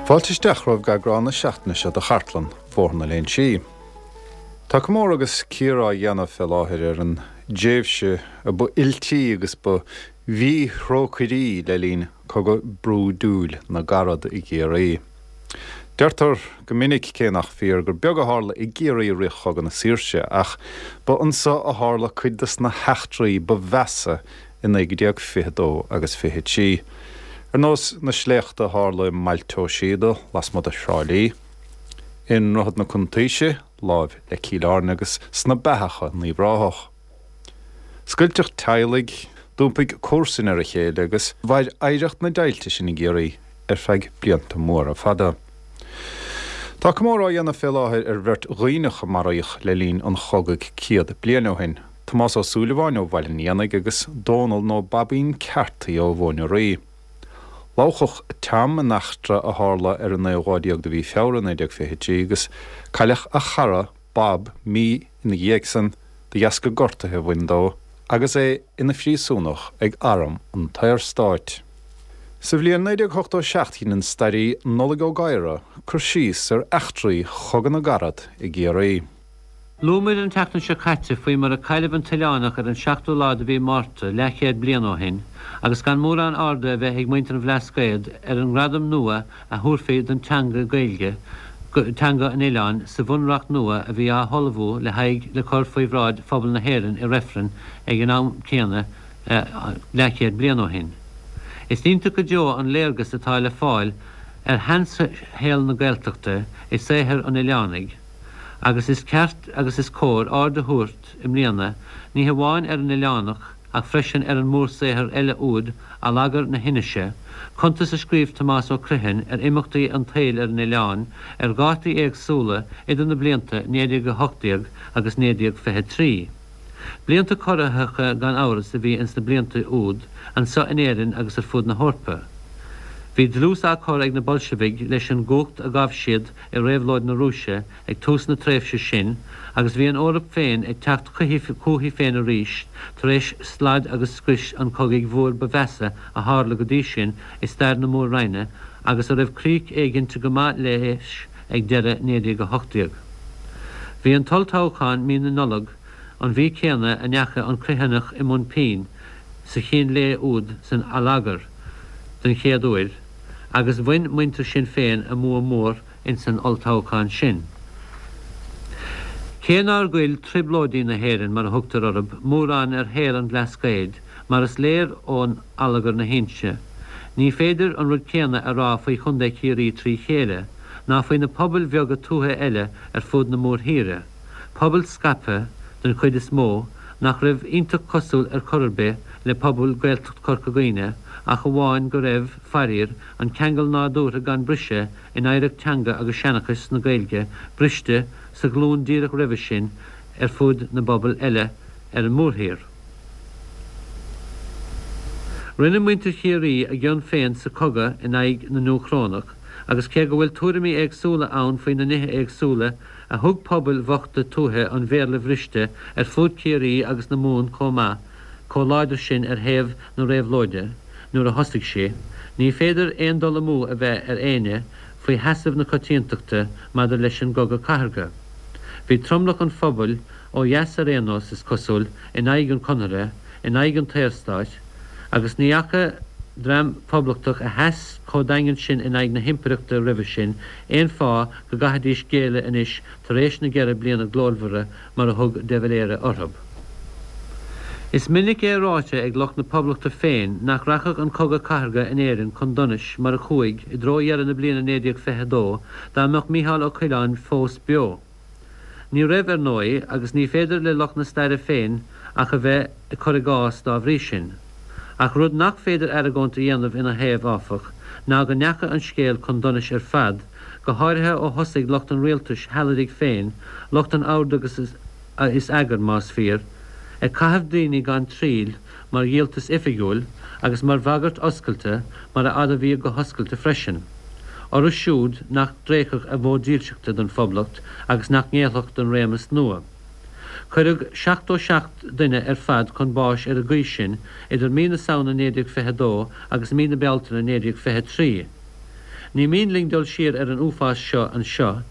Fáilte isteach romhaibh go eagrán na seachtaine seo de Chartlann Bhóthar na Léinsí. Tá comóradh agus cíoradh á dhéanamh fé láthair ar an dtréimhse a ba fhuiltí agus ba mhíthrócairí le linn Cogadh brúidiúil na gCarad i gCiarraí. Deirtear go minic, cé nach fíor, gur beag a tharla i gCiarraí i rith Chogadh na Saoirse, ach ba anso a tharla cuid de na heachtraí ba mheasa i 1922 agus 23, ar nós na sléachta a tharla i mBailte Ó Síoda, lasmuigh de Thrá Lí, i nDroichead na Cuntaoise, láimh le Cill Airne agus sna Beathacha, in Uíbh Ráthach. Scoilteadh teaghlaigh, d'iompaigh comharsain ar a chéile agus mhair oidhreacht na deighilte sin i gCiarraí ar feadh blianta móra fada. Tá comóradh á dhéanamh fé láthair ar bheirt Dhuibhneach a maraíodh le linn an chogaidh 100 bliain ó shin, Tomás Ó Súilleabháin ó Bhaile an Éanaigh agus Dónal nó Baibín Carthy ó Mhóin Rí. Lobhadh Tom in eachtra a tharla ar an naoú lá déag de mhí Feabhra 1923 agus cailleadh a chara Bob mí ina dhiaidh san de dheasca gortaithe a bhain dó agus é ina phríosúnach ag arm an tSaorstáit. Sa bhliain 1987 dhein an stairí Nollaig Ó Gadhra cur síos ar eachtraí Chogadh na gCarad i gCiarraí. Luamar an tseachtain seo caite faoi mar a cailleadh an tOileánach ar an seachtú lá de mhí Márta leathchéad bliain ó shin agus gan mórán airde a bheith ag muintir an Bhlascaoid ar an ngradam nua a thabharfaí don teanga Gaeilge, teanga an oileáin, sa bhunreacht nua a bhí á hullmhú le haghaidh le cur faoi bhráid phobal na hÉireann i reifreann ag an am céanna leathchéad bliain ó shin. Is iontach go deo an léargas atá le fáil ar sheanshaol na Gaeltachta i saothar an Oileánaigh. Agus is ceart agus is cóir aird a thabhairt i mbliana ní hamháin ar an Oileánach ach freisin ar an mórshaothar eile úd Allagar na hInise, cuntas a scríobh Tomás Ó Criomhthain ar imeachtaí an tsaoil ar an oileán ar dhátaí éagsúla idir na blianta 1918 agus 1923. Blianta corraitheacha gan amhras a bhí ins na blianta úd anso in Éirinn agus ar fud na hEorpa. Bhí dlús á cur ag na Boilsivigh leis an gcumhacht a ghabh siad i Réabhlóid na Rúise ag tús na tréimhse sin agus bhí an Eoraip féin ag teacht chúichi féin arís tar éis slad agus scrios an chogaidh mhóir ba mheasa a tharla go dtí sin i stair na Mór-Roinne agus a raibh crích éiginnte go maith léis ag deireadh 1918. Bhí an t-olltoghchán mí na Nollag, an mhí céanna a ndeachaigh an Criomhthanach i mbun pinn sa chín lae úd san Allagar den chéad uair, agus bhain muintir Shinn Féin a mbua mór insan olltoghchán sin. Cé nár ghoill trioblóidí na hÉireann, mar a thugtar orthu, mórán ar shaol an Bhlascaoid, mar is léir ón Allagar na hInse, ní féidir an rud céanna a rá faoi Chontae Chiarraí trí chéile, ná faoi na pobail bheaga tuaithe eile ar fud na mórthíre, pobail scaipthe, den chuid is mó, nach raibh iontach cosúil ar chor ar bith le pobal Gaeltacht Chorca Dhuibhne ach amháin go raibh, faraor, an ceangal nádúrtha gan briseadh in oidhreacht teanga agus seanchais na Gaeilge briste sa ghlúin díreach roimhe sin ar fud na bpobal eile ar an mórthír. Rinne muintir Chiarraí a gcion féin sa chogadh in aghaidh na nDúchrónach agus cé go bhfuil tuairimí éagsúla ann faoi na nithe éagsúla a thug pobail bhochta tuaithe an Bhéarla bhriste ar fud Chiarraí agus na Mumhan chomh maith, chomh láidir sin ar thaobh na réabhlóide nuair a thosaigh sí, ní féidir aon dul amú a bheith ar éinne faoi sheasamh na coitiantachta maidir leis an gCogadh Cathartha. Bhí tromlach an phobail, ó dheas ar aon nós, is cosúil, in aghaidh an Chonartha, in aghaidh an tSaorstáit, agus ní fhaca dream poblachtach a sheas chomh daingean sin in aghaidh na himpireachta roimhe sin aon fáth go gcaithfidís géilleadh anois tar éis na gceithre bliana glórmhara mar a thug de Valera orthu. Is minic é ráite ag lucht na Poblachta féin nach rachadh an Cogadh Cathartha in Éirinn chun donais mar a chuaigh i dtreo dheireadh na bliana 1922 dá mbeadh Mícheál Ó Coileáin fós beo. Ní raibh, ar ndóigh, agus ní féidir le lucht na staire féin ach a bheith ag cur i gcás dá bhrí sin. Ach rud nach féidir argóint a dhéanamh ina thaobh, áfach, ná go ndeachaigh an scéal chun donais ar fad, go háirithe ó thosaigh lucht an rialtais shealadaigh féin, lucht an oird agus is eagair, más fíor, ag caitheamh daoine gan triail mar dhíoltas oifigiúil agus mar bhagairt oscailte, mar a admhaíodh go hoscailte freisin, orthu siúd nach dtréigfeadh a bhfód dílseachta don Phoblacht agus nach ngéillfeadh don réimeas nua. Cuireadh 77 duine ar fad chun báis ar an gcaoi sin idir mí na Samhna 1922 agus mí na Bealtaine 1923. Ní mian linn dul siar ar an uafás seo anseo,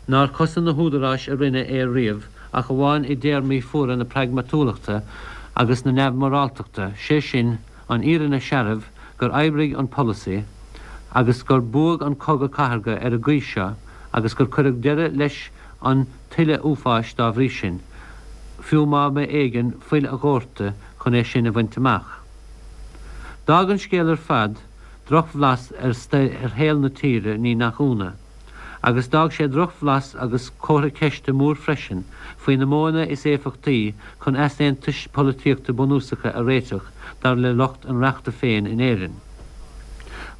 nár chosain na húdaráis a rinne é riamh ach amháin i dtéarmaí fuara na pragmatúlachta agus na neamh-mhoráltachta, sé sin, an fhírinne searbh gur oibrigh an polasaí agus gur buadh an cogadh cathartha ar an gcaoi seo agus gur cuireadh deireadh leis an tuilleadh uafáis dá bhrí sin, fiú má ba éigean fuil a dhóirteadh chun é sin a bhaint amach. D'fhág an scéal ar fad drochbhlas ar shaol na tíre, ní nach ionadh. Agus d'fhág sé drochbhlas agus comhartha ceiste mór freisin faoi na modhanna is éifeachtaí chun easaontais polaitíochta bunúsacha a réiteach dar le lucht an reachta féin in Éirinn.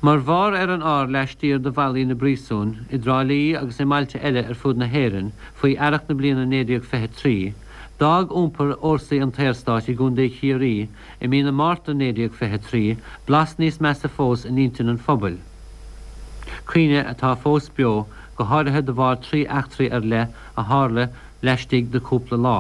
Mar bharr ar an ár laistiar de bhallaí na bpríosún i dTrá Lí agus i mbailte eile ar fud na hÉireann faoi earrach na bliana 1923, d'fhág iompar fhórsaí an tSaorstáit i gContae Chiarraí i mí na Márta 1923 blas níos measa fós in intinn an phobail. Cuimhne atá fós beo, go háirithe de bharr 3 eachtraí ar leith a tharla laistigh de chúpla lá.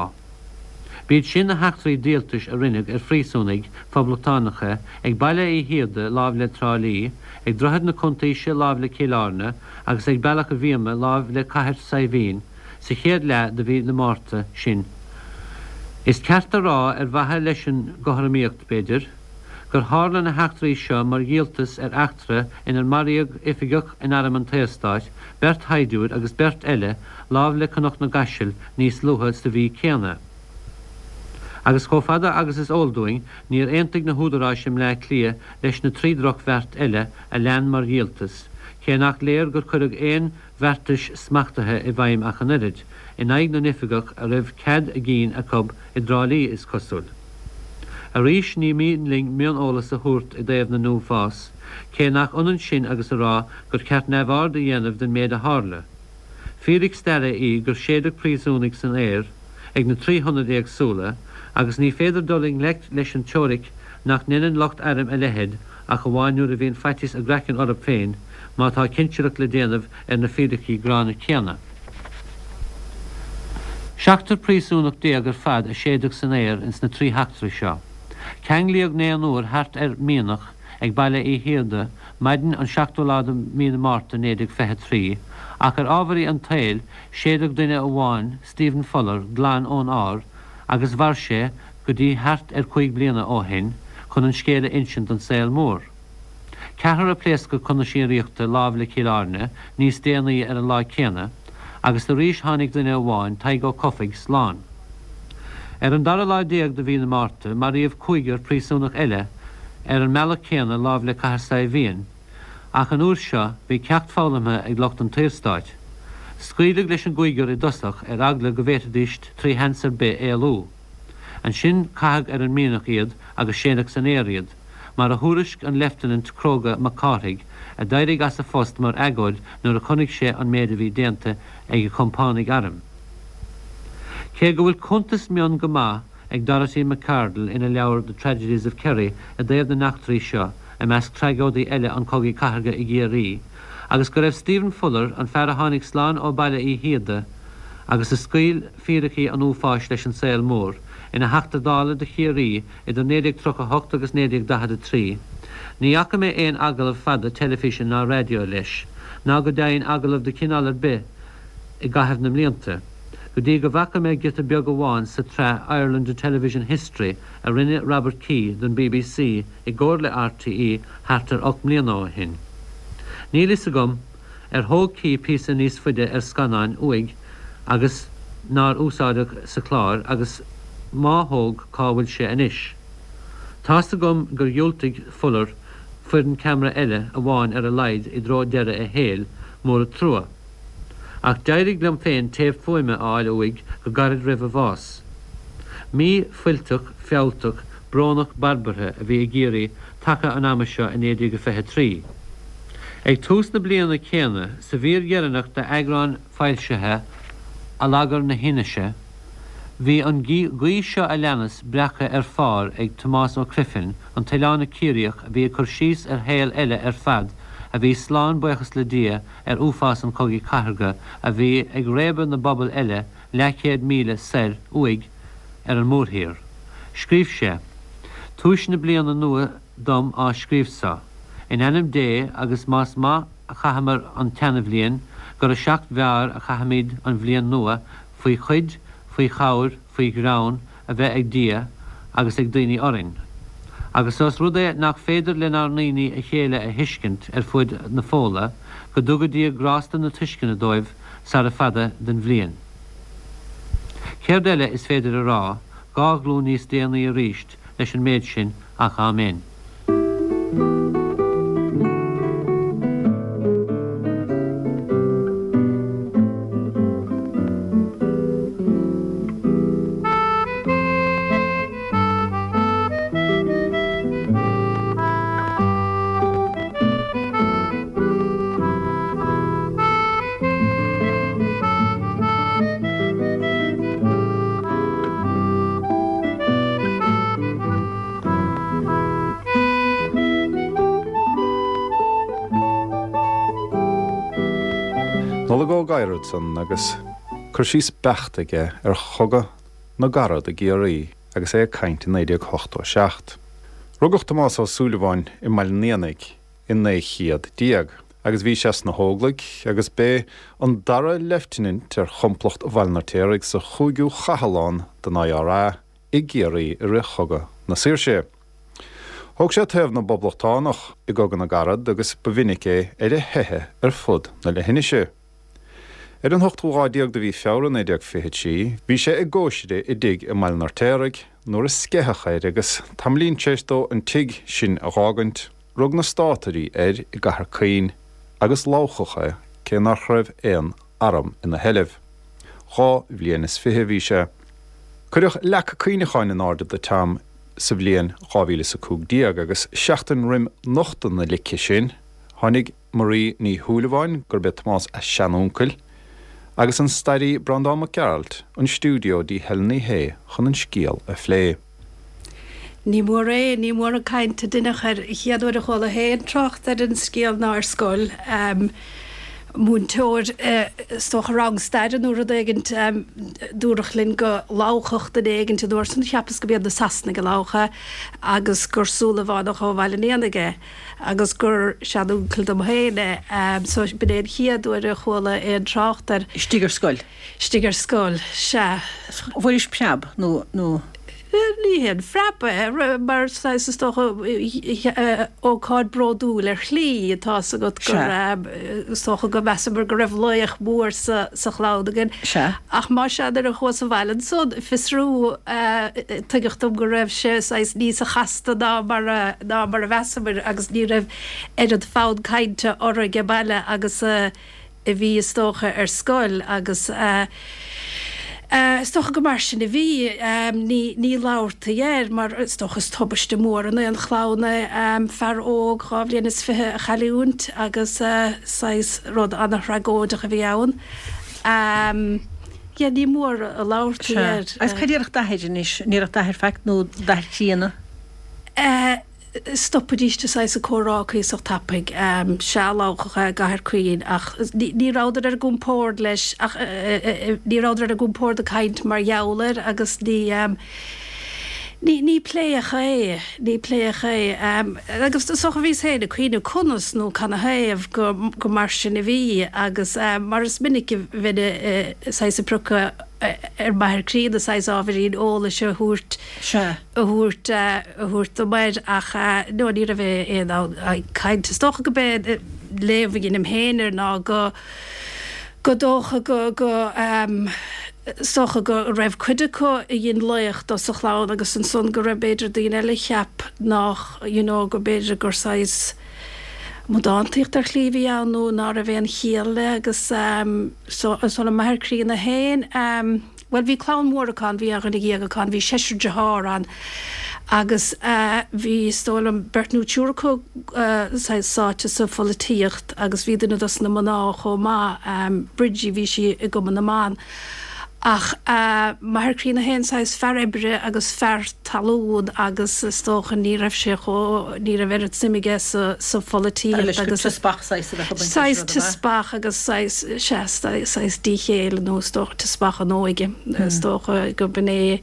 B'iad sin na heachtraí díoltais a rinneadh ar phríosúnaigh phoblachtánacha ag Baile Uí Shíoda láimh le Trá Lí, ag Droichead na Cuntaoise láimh le Cill Airne agus ag Bealach a' Bhíoma láimh le Cathair Saidhbhín sa chéad leath de mhí na Márta sin. Is ceart a rá, ar mhaithe leis an gcothromaíocht, b'fhéidir, gur tharla na heachtraí seo mar dhíoltas ar eachtra inar maraíodh oifigeach in Arm an tSaorstáit, beirt shaighdiúir agus beirt eile láimh le Cnoc na gCaiseal níos luaithe sa mhí céanna. Agus chomh fada agus is eol dúinn, níor aontaigh na húdaráis i mBleá Cliath leis na 3 drochbheart eile a lean mar dhíoltas, cé nach léir gur cuireadh aon bheartais smachtaithe i bhfeidhm ach an oiread, in aghaidh na n-oifigeach a raibh cead a gcinn acu i dTrá Lí, is cosúil. Arís, ní mian linn mioneolas a thabhairt i dtaobh na n-uafás, cé nach ionann sin agus a rá gur ceart neamhaird a dhéanamh den méid a tharla. Fíric staire í gur séideadh príosúnaigh san aer ag na 3 hionad éagsúla, agus ní féidir dul i ngleic leis an teoiric nach ndeineann lucht airm a leithéid ach amháin nuair a bhíonn faitíos a gcraicinn orthu féin má tá cinsireacht le déanamh ar na fíricí gránna céanna. Seachtar príosúnach ar fad a séideadh san aer ins na 3 heachtra seo. Ceanglaíodh naonúr thart ar mhianach ag Baile Uí Shíoda maidin an 7ú lá de mhí na Márta 1923 ach ar ámharaí an tsaoil séideadh duine amháin, Stephen Fuller, glan ón ár agus mhair sé go dtí thart ar chúig bliana ó shin chun an scéal a insint don saol mór. Ceathrar a pléascadh chun na síoraíochta láimh le Cill Airne níos déanaí ar an lá céanna agus arís tháinig duine amháin, Tadhg Ó Cofaigh, slán. Ar an dara lá de mhí na Márta maraíodh cúigear príosúnach eile ar an mbealach céanna láimh le Cathair Saidhbhín. Ach an uair seo bhí ceacht foghlamtha ag lucht an tSaorstáit. Scaoileadh leis an gcúigear i dtosach ar eagla go bhféadfaidís trí sheans ar bith éalú. Ansin caitheadh ar an mianach iad agus séideadh san aer iad, mar a thuairisc an Leifteanant cróga Mac Cárthaigh, a d'éirigh as a phost mar agóid nuair a chonaic sé an méid a bhí déanta ag a chompánaigh airm. Cé go bhfuil cuntas mion go maith ag Dorothy Macardle ina leabhar The Tragedies of Kerry i dtaobh na n-eachtraí seo, i measc tragóidí eile an Chogaidh Cathartha i gCiarraí, agus go raibh Stephen Fuller, an fear a tháinig slán ó Baile Uí Shíoda agus a scaoil fíricí an uafáis leis an saol mór, ina Theachta Dála do Chiarraí idir 1938 agus 1943. Ní fhaca mé aon agallamh fada teilifíse ná raidió leis, ná go deimhin agallamh de chineál ar bith i gcaitheamh na mblianta, go dtí go bhfaca mé giota beag amháin sa tsraith Ireland a Television History a rinne Robert Kee don bbc i gcomhar le RTÉ thart ar 8 mbliana ó shin. Níl fhios agam ar thóg Kee píosa níos faide ar scannán uaidh agus nár úsáideadh sa chlár agus má thóg cá bhfuil sé anois. Tá's agam gur dhiúltaigh Fuller foireann ceamara eile amháin ar a laghad i dtreo deireadh a shaoil, mór an trua. Ach d'éirigh liom féin téip fuaime a fháil uaidh go gairid roimh a bhás. Mí fuilteach, fealltach, brónach barbartha a bhí i gCiarraí taca an ama seo i 1923. Ag tús na bliana céanna, sa mhír dheireanach d'eagrán foilsithe Allagar na hAinnise, bhí an guí seo a leanas breactha ar phár ag Tomás Ó Criomhthain, an t-oileánach Ciarraíoch a bhí ag cur síos ar shaol eile ar fad a bhí slán, buíochas le Dia, ar uafás an Chogaidh Chathartha a bhí ag réabadh na bpobal eile leathchéad míle soir uaidh ar an mórthír. Scríobh sé, Túis na bliana nua dom á scríobh so, in ainm Dé agus más maith. a chaitheamar an tseanabhliain, gur a sheacht bhfearr a chaithfimid an bhliain nua, faoi chuid, faoi chabhair, faoi ghreann a bheith ag Dia agus ag daoine orainn. Agus ós rud é nach féidir lenár ndaoine a chéile a thuiscint ar fuaid na Fódhla, go dtuga Dia grásta na tuisceana dóibh sara fada den bhliain. Céard eile is féidir a rá, 2 ghlúin níos déanaí aríst, leis an méid sin ach Áiméan. Nollaig Ó Gadhra ansan agus cur síos beacht aige ar Chogadh na gCarad i gCiarraí agus é ag caint i 1987. Rugadh Tomás Ó Súilleabháin i mBaile an Éanaigh i 1900 agus bhí sé sna hÓglaigh agus b'é an dara leifteanant ar chomplacht Bhaile an Fheirtéaraigh sa chúigiú chathlán den IRA i gCiarraí i rith Chogadh na Saoirse. Thóg sé taobh na bPoblachtánach i gCogadh na gCarad agus ba mhinic é ar a theitheadh ar fud na leithinise. Ar an ochtú lá déag de mhí Feabhra 1923 bhí sé i gcóisir i dtigh i mBaile an Fheirtéaraigh nuair a sceitheadh air agus tamaillín tar éis dó an tigh sin a dh'fhágaint rug na Státairí air i gCathair Caoin agus lamhchadh é cé nach raibh aon arm ina sheilbh. 22 bhliain a bhí sé. Cuireadh leac cuimhneacháin in airde do Tom sa bhliain 2015 agus seachtain roim nochtadh na lice sin, tháinig Marie Ní Shúilleabháin, gurb é Tomás a seanuncail, agus an stairí Breandán Mac Gearailt 'on stiúideo dtí Helen Ní Shé chun an scéal a phlé. Ní mór é, ní mór an chaint a deineadh air. An chéad uair a chuala féin trácht ar an scéal ná ar scoil. Múinteoir, is dócha rang staire nó rud éigint, dúradh linn go lamhchadh duine éigint an uair san, cheapas go b'iad na Sasanaigh a lamhach é, agus gur Súilleabhánach ó Bhaile an Éanaigh é, agus gur seanuncail dom féin é. So b'in é an chéad uair a chuala aon trácht air. Istigh ar scoil? Istigh ar scoil, sea. Bhfuairis preab nó, nó. Ní haon phreab é, mar saghas, is dócha, ócáid bródúil ar shlí, atá 's agat gur, is dócha go measamar go raibh laoch mór sa chlann againn. Sea. Ach más ea, nuair a chuas abhaile ansan, fiosrú, tuigeadh dom go raibh sé saghas níosa chasta ná mar a, ná mar a mheasamar agus ní raibh oiread fonn cainte orainn age baile agus a, a bhí, is dócha, ar scoil agus is dócha go mar sin a bhí. Ní, ní labhartaí air mar is dócha is tubaiste mór in aon chlann é fear óg 22 bhliain a chailliúint agus saghas rud ana-thragóideach a bhí ann. Yeah, ní mór a labhartaí air. Agus cad a déarfadh d'athair anois? An ndéarfadh d'athair faic nó d'athair críonna? Stopaidís de saghas an comhrá cuíosach tapaidh. Sea, lamhchadh é i gCathair Caoin ach ní rabhadar ar a gcompord leis ach ní rabhadar ar a gcompord ag caint mar gheall air agus ní ní ní pléadh é, ní pléadh é. Agus is dócha bhíos féin ag cuimhneamh conas nó canathaobh go go mar sin a bhí agus mar is minic a bheinn saghas ag priocadh ar m'athair críonna saghas ábhairín eolais a thabhairt Sea. a thabhairt a thabhairt dom air ach no ní raibh aon fhonn cainte. Is dócha go b'é léamh a dheinim féin air ná go go dócha go go is dócha go raibh cuid acu a dhein laoch dó sa chlann agus ansan go raibh b'fhéidir daoine eile a cheap nách you know go b'fhéidir gur saghas amadántaíocht ar shlí a bhí ann nó ná raibh aon chiall le agus so so an m'athair críonna féin Bhuel, bhí clann mhór acu ann, bhí 11 dhuine acu ann, bhí seisear dearthár ann agus bhí, is dóigh liom, beirt nó triúr acu saghas sáite sa pholaitíocht agus bhí duine dos na mná chomh maith, Bridgie, bhí sí i gCumann na mBan. Ach m'athair críonna féin, saghas fear oibre agus fear talún agus is dócha ní raibh sé chomh, ní raibh oiread suim aige sa, sa pholaitíocht agus. Teaspach saghas a bheadh ag baint leis Saghas teaspach agus saghas, sea, saghas díchéille nó is dócha teaspach an óige, is dócha go b'in é.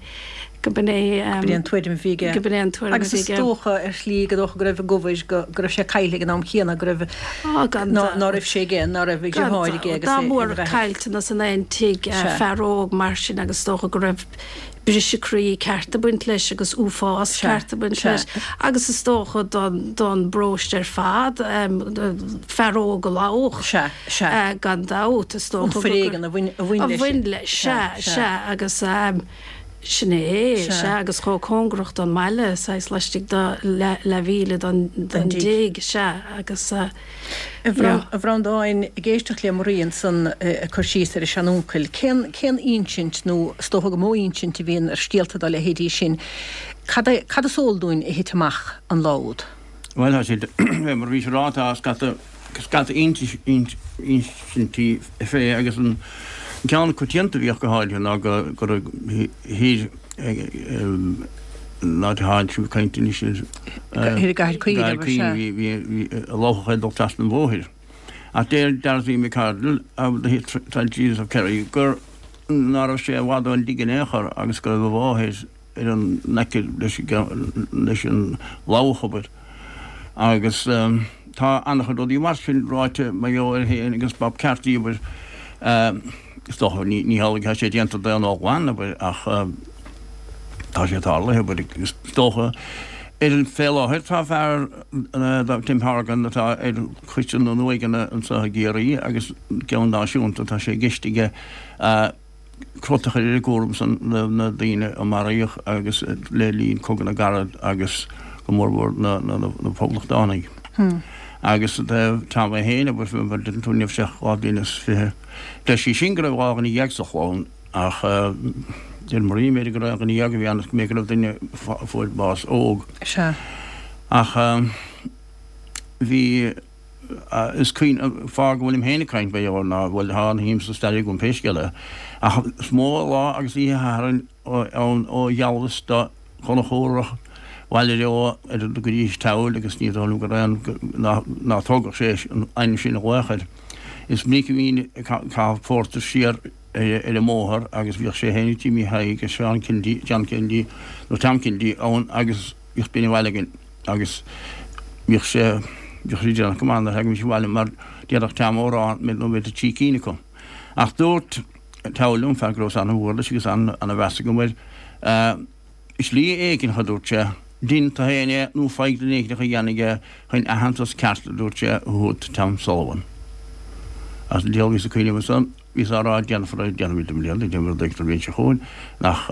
Go b'in é. Go b'in é an tuairim a bhí aige. Go b'in é an tuairim a Agus bhí is aige. dócha, ar shlí, go dócha go raibh ag obair, go go raibh sé caillte ag an am chéanna, go raibh, Á, gan ná dabht. ná raibh sé aige, ná raibh a Gan dheartháir aige dabht. agus Dá é ina mór bheatha. caillteanas in aon tigh, Sea. fear óg mar sin agus is dócha go raibh briseadh croí ceart ag baint leis agus uafás Sea. ceart ag baint Sea. leis agus is dócha don don bparóiste ar fad, fear óg a lobhadh. Sea. Sea. Gan dabht, is An dócha go foréigean a bhain a bhain a leis. bhain leis, sea, Sea. sea agus. Sin é, sea, agus chomh cóngarach don mbaile, saghas laistigh de leathmhíle don dtigh, sea, agus, A Bhreandáin, ag éisteacht le Marie ansan ag cur síos ar a seanuncail, cén, cén insint, nó is dócha gur mó insint a bhíonn ar scéalta dá leithéidí sin, cad é, cad is eol dúinn a thit amach an lá úd? Bhuel, tá siad, mar a bhís ag rá, tá scata, scata insintí fé agus an ceann coitianta a bhíodh go háirithe ná go go raibh thiar an áit atá sibh ag caint anois Thiar i gCathair Caoin, gCathair Caoin, bhí, bhí, bhí lobhadh ag dul trasna an bhóthair. Ach deir Dorothy Macardle of the Tragedies of Kerry gur ná raibh sé i bhfad ón dtigh in aon chor agus go raibh a mháthair ar an aice leis an lobhadh, abair. Agus tá an-chuid rudaí mar sin ráite mar gheall air féin agus Bob Carty, abair. Is dócha, ní hamhlaidh atá sé déanta d'aon ghlan, abair, ach tá sé tarlaithe, abair, is dócha. Ar an fé láthair tá fear, Tim Horgan, atá ar choiste na n-uaigheanna anseo i gCiarraí agus ceann náisiúnta, tá sé i gceist aige crot a chur ar an gcúram san na daoine a maraíodh agus le linn Cogadh na gCarad agus go mór mhór na Poblachtánaigh. Agus i dtaobh Tom é féin, abair, mar a deireann tú, ní raibh sé ach 22 bliain. Deir sí sin go raibh 12 sa chlann ach deir Marie b'fhéidir gur 11 a bhí ann is go mb'fhéidir go raibh duine a fuair bás óg. Sea. Ach bhí. Is cuimhin, fáth go bhfuilim féin ag caint mar gheall air ná, bhuel, tá an-shuim sa stair agam pé scéal é, ach is mó lá agus oíche Shathairn ann ó Ghealbhas do Chonchúrach Bhaile Eo ar go dtí Teamhair agus ní dóigh liom go raibh aon, ná tógfadh sé an ainm sin a ghlaoch air. Is minic a bhínn ag caitheamh pórtair siar ar an mbóthar agus bhíodh sé féin agus Jimmy Thaidhg agus Seán Kennedy, John Kennedy nó Tom Kennedy ann agus bhíodh duine abhaile againn agus bhíodh sé, bhíodh sé déanach go maith nuair a thagaimis abhaile mar déarfadh Tom amhrán nó b'fhéidir trí cinn acu. Ach dúirt Tom liom, fear go rabhas an-mhór leis agus an-mheas agam air, slí éigin, a dúirt sé, dein tú féin é nó faigh duine éigin a dhéanfaidh é chun aitheantas ceart, a dúirt sé, a thabhairt Tom Sullivan. Agus an diabhal bhíos ag cuimhneamh ansan. Bhíos á rá, déanfar é, déanfaimid i mbliana, déanfaimid rud éigin an bhliain seo chugainn, ach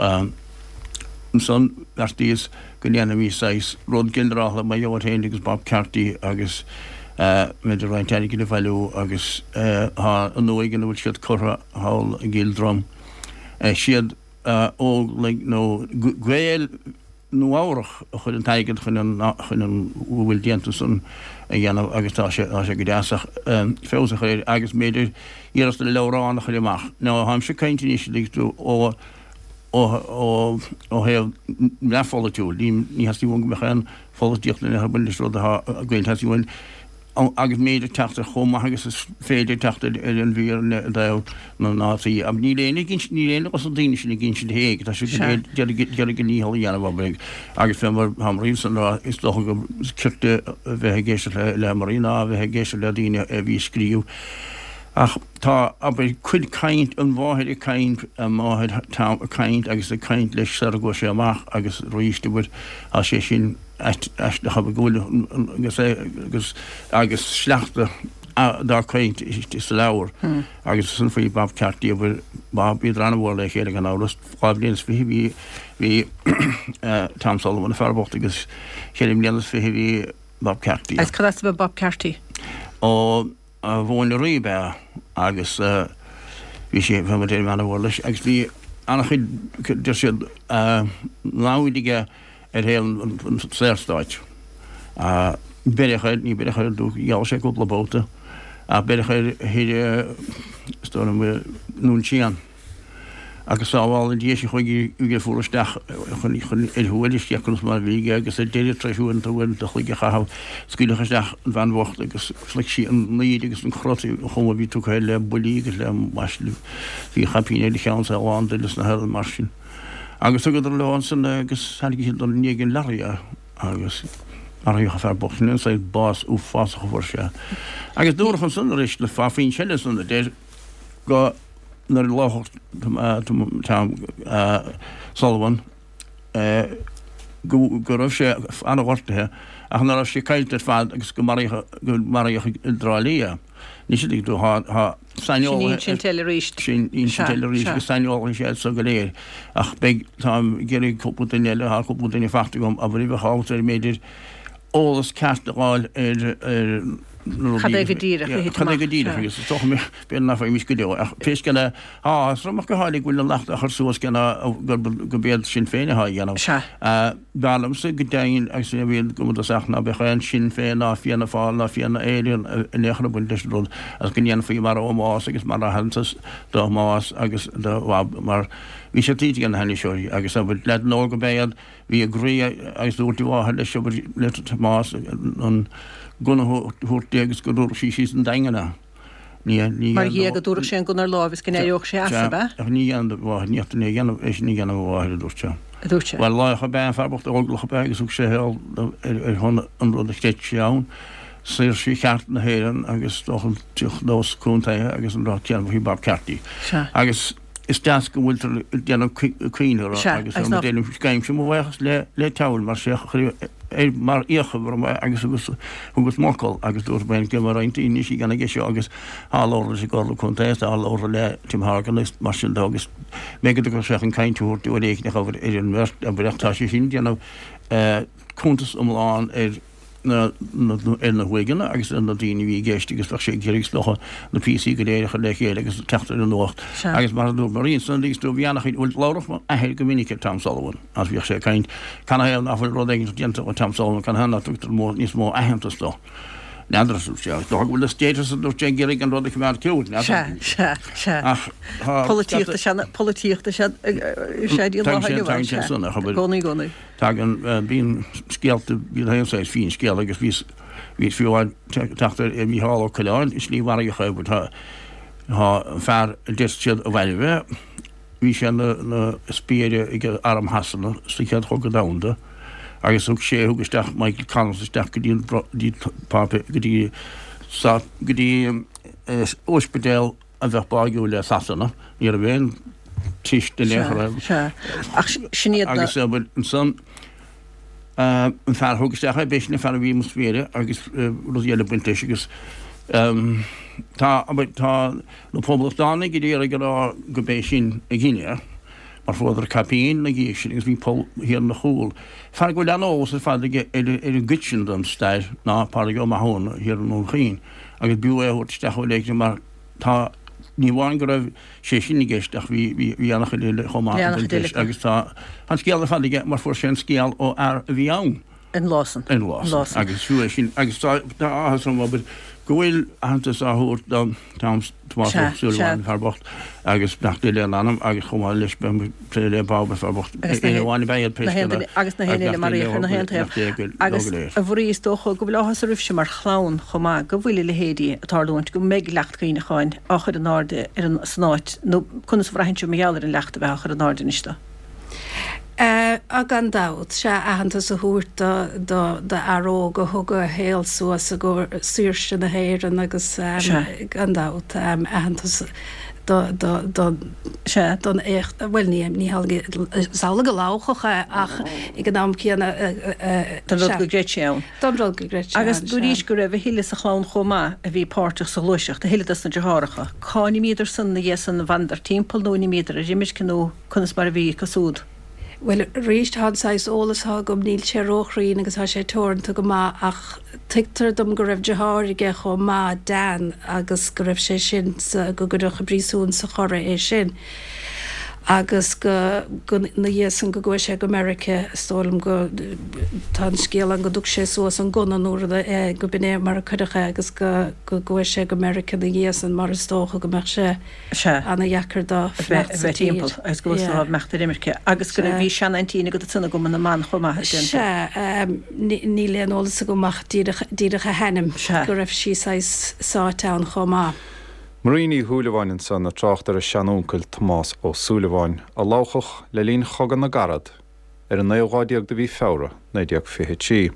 ansan bheartaíos go ndéanfaimis saghas rud ginearálta mar gheall air féin agus Bob Carty agus b'fhéidir roinnt airgid a bhailiú agus tá an uaigh ina bhfuil siad curtha thall i gCill Drom, siad Óglaigh nó Gaeil Nua Eabhrach a chuir an t-airgead chun an chun an bhfuil déanta san a dhéanamh agus tá sé tá sé go deas ach feabhas a chur air agus b'fhéidir iarracht ar leabhrán a chur amach. Now táimse ag caint anois an dtuigeann tú ó ó ó ó thaobh neamhpholaitiúil. Ní ní theastaíonn uaim go mbeadh aon pholaitíocht in aon chor ag baint leis an rud atá againn. Teastaíonn uaim agus b'fhéidir teacht ar chomh maith agus is féidir teacht ar an bhfírinne i dtaobh na ndátaí. Ach níl éinne ag insint, níl éinne dos na daoine sin ag insint éag, tá siad go léir d'iarraidh a ndícheall a dhéanamh abair agus fé mar tá Marie ansan ag rá is dócha gur cirte a bheith ag éisteacht le Marie ná a bheith ag éisteacht le daoine a bhí ag scríobh. Ach tá, abair, cuid caint, an mháthair ag caint, máthair Tom ag caint agus ag caint leis sara gcuaigh sé amach agus arís, abair, tá sé sin, aisteach go bhfuil agus agus agus sleachta dá caint sa leabhar agus san faoi Bob Carty abair Bob bhíodar an-mhór le chéile gan amhras 22 bhí bhí Tom Sullivan an fear bocht agus 24 bhí Bob Carty. Agus cad as a bhí Bob Carty? Ó Mhóin Rí ab ea agus bhí sé, bhí muid an-mhór leis agus bhí an-chuid, deir siad, namhaid aige ar thaobh an tSaorstáit. Beireadh air, ní beireadh air, gheall sé cúpla babhta, ach beireadh air thoir, is dóigh liom, i nDún Síon. Agus sábhála Dia sinn chuige go fuair isteach chun ar thuairisc conas mar a bhí aige agus ar deireadh tar éis uaireanta uaireanta a chloig a chaitheamh scaoileadh isteach an bhean bhocht agus shroich sí an laoide agus an crot an chuma a bhí tugtha air le buillí agus le maisle bhí caipín ar a cheann is é lán d'fhuil is na mar sin. Agus thugadar leo ansan é agus tháinig siad i ndiaidh an leoraí é agus maraíodh an fear bocht sin ansan, bás uafásach a fuair sé. Agus dúradh ansan arís le fá foinse eile ansan a deir go nuair a lámhachadh Tom Sullivan go raibh sé an-ghortaithe ach nach raibh sé caillte ar fad agus go maraíodh i dTrá Lí é. Anois an dtuigeann tú, tá saineolaithe. Sin insint eile arís. Sin insint eile arís agus saineolaithe iad so go léir. Ach beidh, táim ag iarraidh cúpla duine eile, tá cúpla duine faighte agam, abair, a bheadh ábalta ar mb'fhéidir eolas ceart a fháil ar na rudaí. Cad é go díreach a thit amach. Cad é go díreach agus is dócha b'fhéidir nach bhfaighimís go deo. Ach pé scéal é, tá áthas orm ach go háirithe go bhfuil an leacht á chur suas cé ná gurb iad Sinn Féin atá á dhéanamh. Sea. B'fhearr liomsa go deimhin agus é a bhí go dtosach ná beadh aon Sinn Féin ná Fianna Fáil ná Fianna Éireann in aon chor ag baint leis an rud agus go ndéanfaí mar ómós agus mar aitheantas do Thomás agus do Bhob mar bhí sé tuillte ag na hainniseoirí agus abair leaideanna óga ab ea iad bhí a gcroí agus dúirt a mháthair leis abair le Tomás an gunna a thabhairt di agus go dtabharfadh sí síos an Daingean é. Mar dhea, go dtabharfadh sé an gunna ar láimh is go n-éireodh sé as, ab ea? Ach ní dhéanfaidh do mháthair, ní dhéanfaidh é a dhéanamh, é sin a dhéanamh a mháthair, a dúirt sé. a dúirt sé. Bhuel, laoch ab ea an fear bocht, óglach ab ea agus thug sé a shaol ar shon an rud a chreid sé ann, saoirse cheart na hÉireann agus dócha an nós contaetha agus an rud céanna faoi Bob Carty. Sea. Agus is deas go bhfuiltear ag déanamh cuimhne orthu agus ar mo déanaim gabhaimse mo bhuíochas le le Teamhair mar sé ar mar fhiacha orm é agus agus thugas m'fhocal agus dúirt mé go mbeadh roinnt daoine anois ag déanamh aige seo agus tá labhartha leis an gComhairle Contae tá labhartha le Tim Horgan agus mar sin de agus mé go dtugadh sé chun caint a thabhairt uair éigin a chur ar an mbeirt abair ach tá sé sin ag déanamh cuntas iomlán ar na ar na huaigheanna agus ar na daoine a bhí i gceist agus bheadh sé ag iarraidh is dócha na píosaí go léir a chur le chéile agus teacht ar an nuacht. Agus mar a dúirt Marie ansan agus tú bhí an-chuid bhuel labhradh m'athair go minic ar Tom Sullivan agus bhíodh sé ag caint canathaobh nach bhfuil rud éigin déanta do Tom Sullivan canathaobh nach dtugtar mó níos mó aitheantas dó. N'fheadar a dúirt sé is dócha go bhfuil na status a dúirt sé ag iarraidh an rud a choimeád ciúin n'fheadar. Sea, sea, sea. Ach tá Polaitíocht is ea polaitíocht is ea is ea dtí an lá inniu Tagann sé san a chobair. I gcónaí, i gcónaí. Tagann, bíonn scéalta, bíonn aon saghas finscéal agus bhíos, bhíos fiú amháin teacht ar Mhícheál Ó Coileáin, an slí mharaíodh é, but tá, tá an fear a deir siad a mhairbh é, bhí sé ina, ina spiaire ag arm Shasana sa Chéad Chogadh Domhanda agus thug sé, thug isteach Michael Collins isteach go dtí an, go dtí páipéar, go dtí, go dtí ospidéal a bheadh báigiúil le Sasana, ní raibh aon teist in aon chor air. Sea, ach sin iad na. Agus ansan an fear a thug isteach é, b'é sin an fear a bhí ina spiaire agus rudaí eile ag baint leis agus tá, tá na Poblachtánaigh ag iarraidh a rá go b'é sin a dhein é mar fuaireadar caipín ina dhiaidh sin agus bhí poll thiar ina chúl. Fear go bhfuil an-eolas ar fad aige ar an gcuid sin den stair ná Pádraig Ó Mathúna thiar i nDún Chaoin. agus b'fhiú é a thabhairt isteach uair éigin mar tá, ní amháin go raibh sé sin i gceist ach bhí, bhí, bhí an-chuid eile chomh maith ag baint leis agus tá an scéal ar fad aige mar fuair sé an scéal ó fhear a bhí ann. An lá san. An lá san. Agus fiú é sin agus tá, tá áthas orm abair go bhfuil aitheantas á thabhairt do Tom, Tomás Ó Súilleabháin, an fear bocht, agus beannacht Dé lena anam agus chomh maith leis beidh plé le Bob an fear bocht, éinne amháin ab ea iad pé scéal é agus na haon eile maraíodh ar na haon taobh. Agus a Mharie is dócha go bhfuil áthas oraibhse mar chlann chomh maith go bhfuil a leithéidí ag tarlúint, go mbeidh leacht cuimhneacháin á chur in airde ar an san áit nó conas a bhraitheann sibh mar gheall ar an leacht a bheith á chur in airde anois do. Á, gan dabht, sea, aitheantas a thabhairt do, do, do fhear óg a thug a shaol suas i gcomhair saoirse na hÉireann agus, gan dabht, aitheantas do, do, do, don éacht, bhuel, ní, ní hamhlaidh, is amhlaidh a lámhachadh é ach ag an am céanna, Don rud go gcreid sé ann. Don rud go gcreid sé ann, Agus dúraís go raibh a thuilleadh sa chlann chomh maith a bhí páirteach sa ghluaiseacht, a thuilleadh dos na deartháireacha. Cá n-imíodar san ina dhiaidh san, an bhfanadar timpeall nó an imíodar ar imirce nó. Conas mar a bhí acu súd? Bhuel, arís, tá an saghas eolas atá agam, níl sé róchruinn agus tá sé teoranta go maith ach tuigtear dom go raibh deartháir aige chomh maith, Dan, agus go raibh sé sin sa, go gcuireadh i bpríosún sa Chorraigh é sin agus go, go, na dhiaidh san go gcuaigh sé go Meirice, is dóigh liom go, tá an scéal ann go dtug sé suas an gunna nó rud, go b'in é mar a cuireadh é agus go, go gcuaigh sé go Meirice na dhiaidh san mar is dócha go mbeadh sé. Sea. Ana-dheacair dó fanacht sa tír. timpeall agus go bhfuil yeah. imeacht ar imirce. Agus go raibh bhí seanaintín agat ansan i gCumann na mBan chomh maith a Sea, níl aon eolas agam ach díreach, díreach a hainm. Sea. Go raibh sí saghas sáite ann chomh maith. Marie Ní Shúilleabháin ansan ag trácht ar a seanúncail Tomás Ó Súilleabháin, a ladhchadh le linn Chogadh na gCarad ar an naoú lá déag de mhí Feabhra, 1923.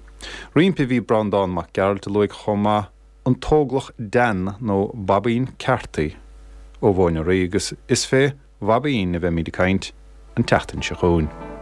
Roimpi bhí Breandán Mac Gearailt a luaigh chomh maith an tÓglach Dan nó Baibín Carthy ó Mhóin an Rí agus is fé Bhaibín a bheimíd ag caint an tseachtain seo chugainn.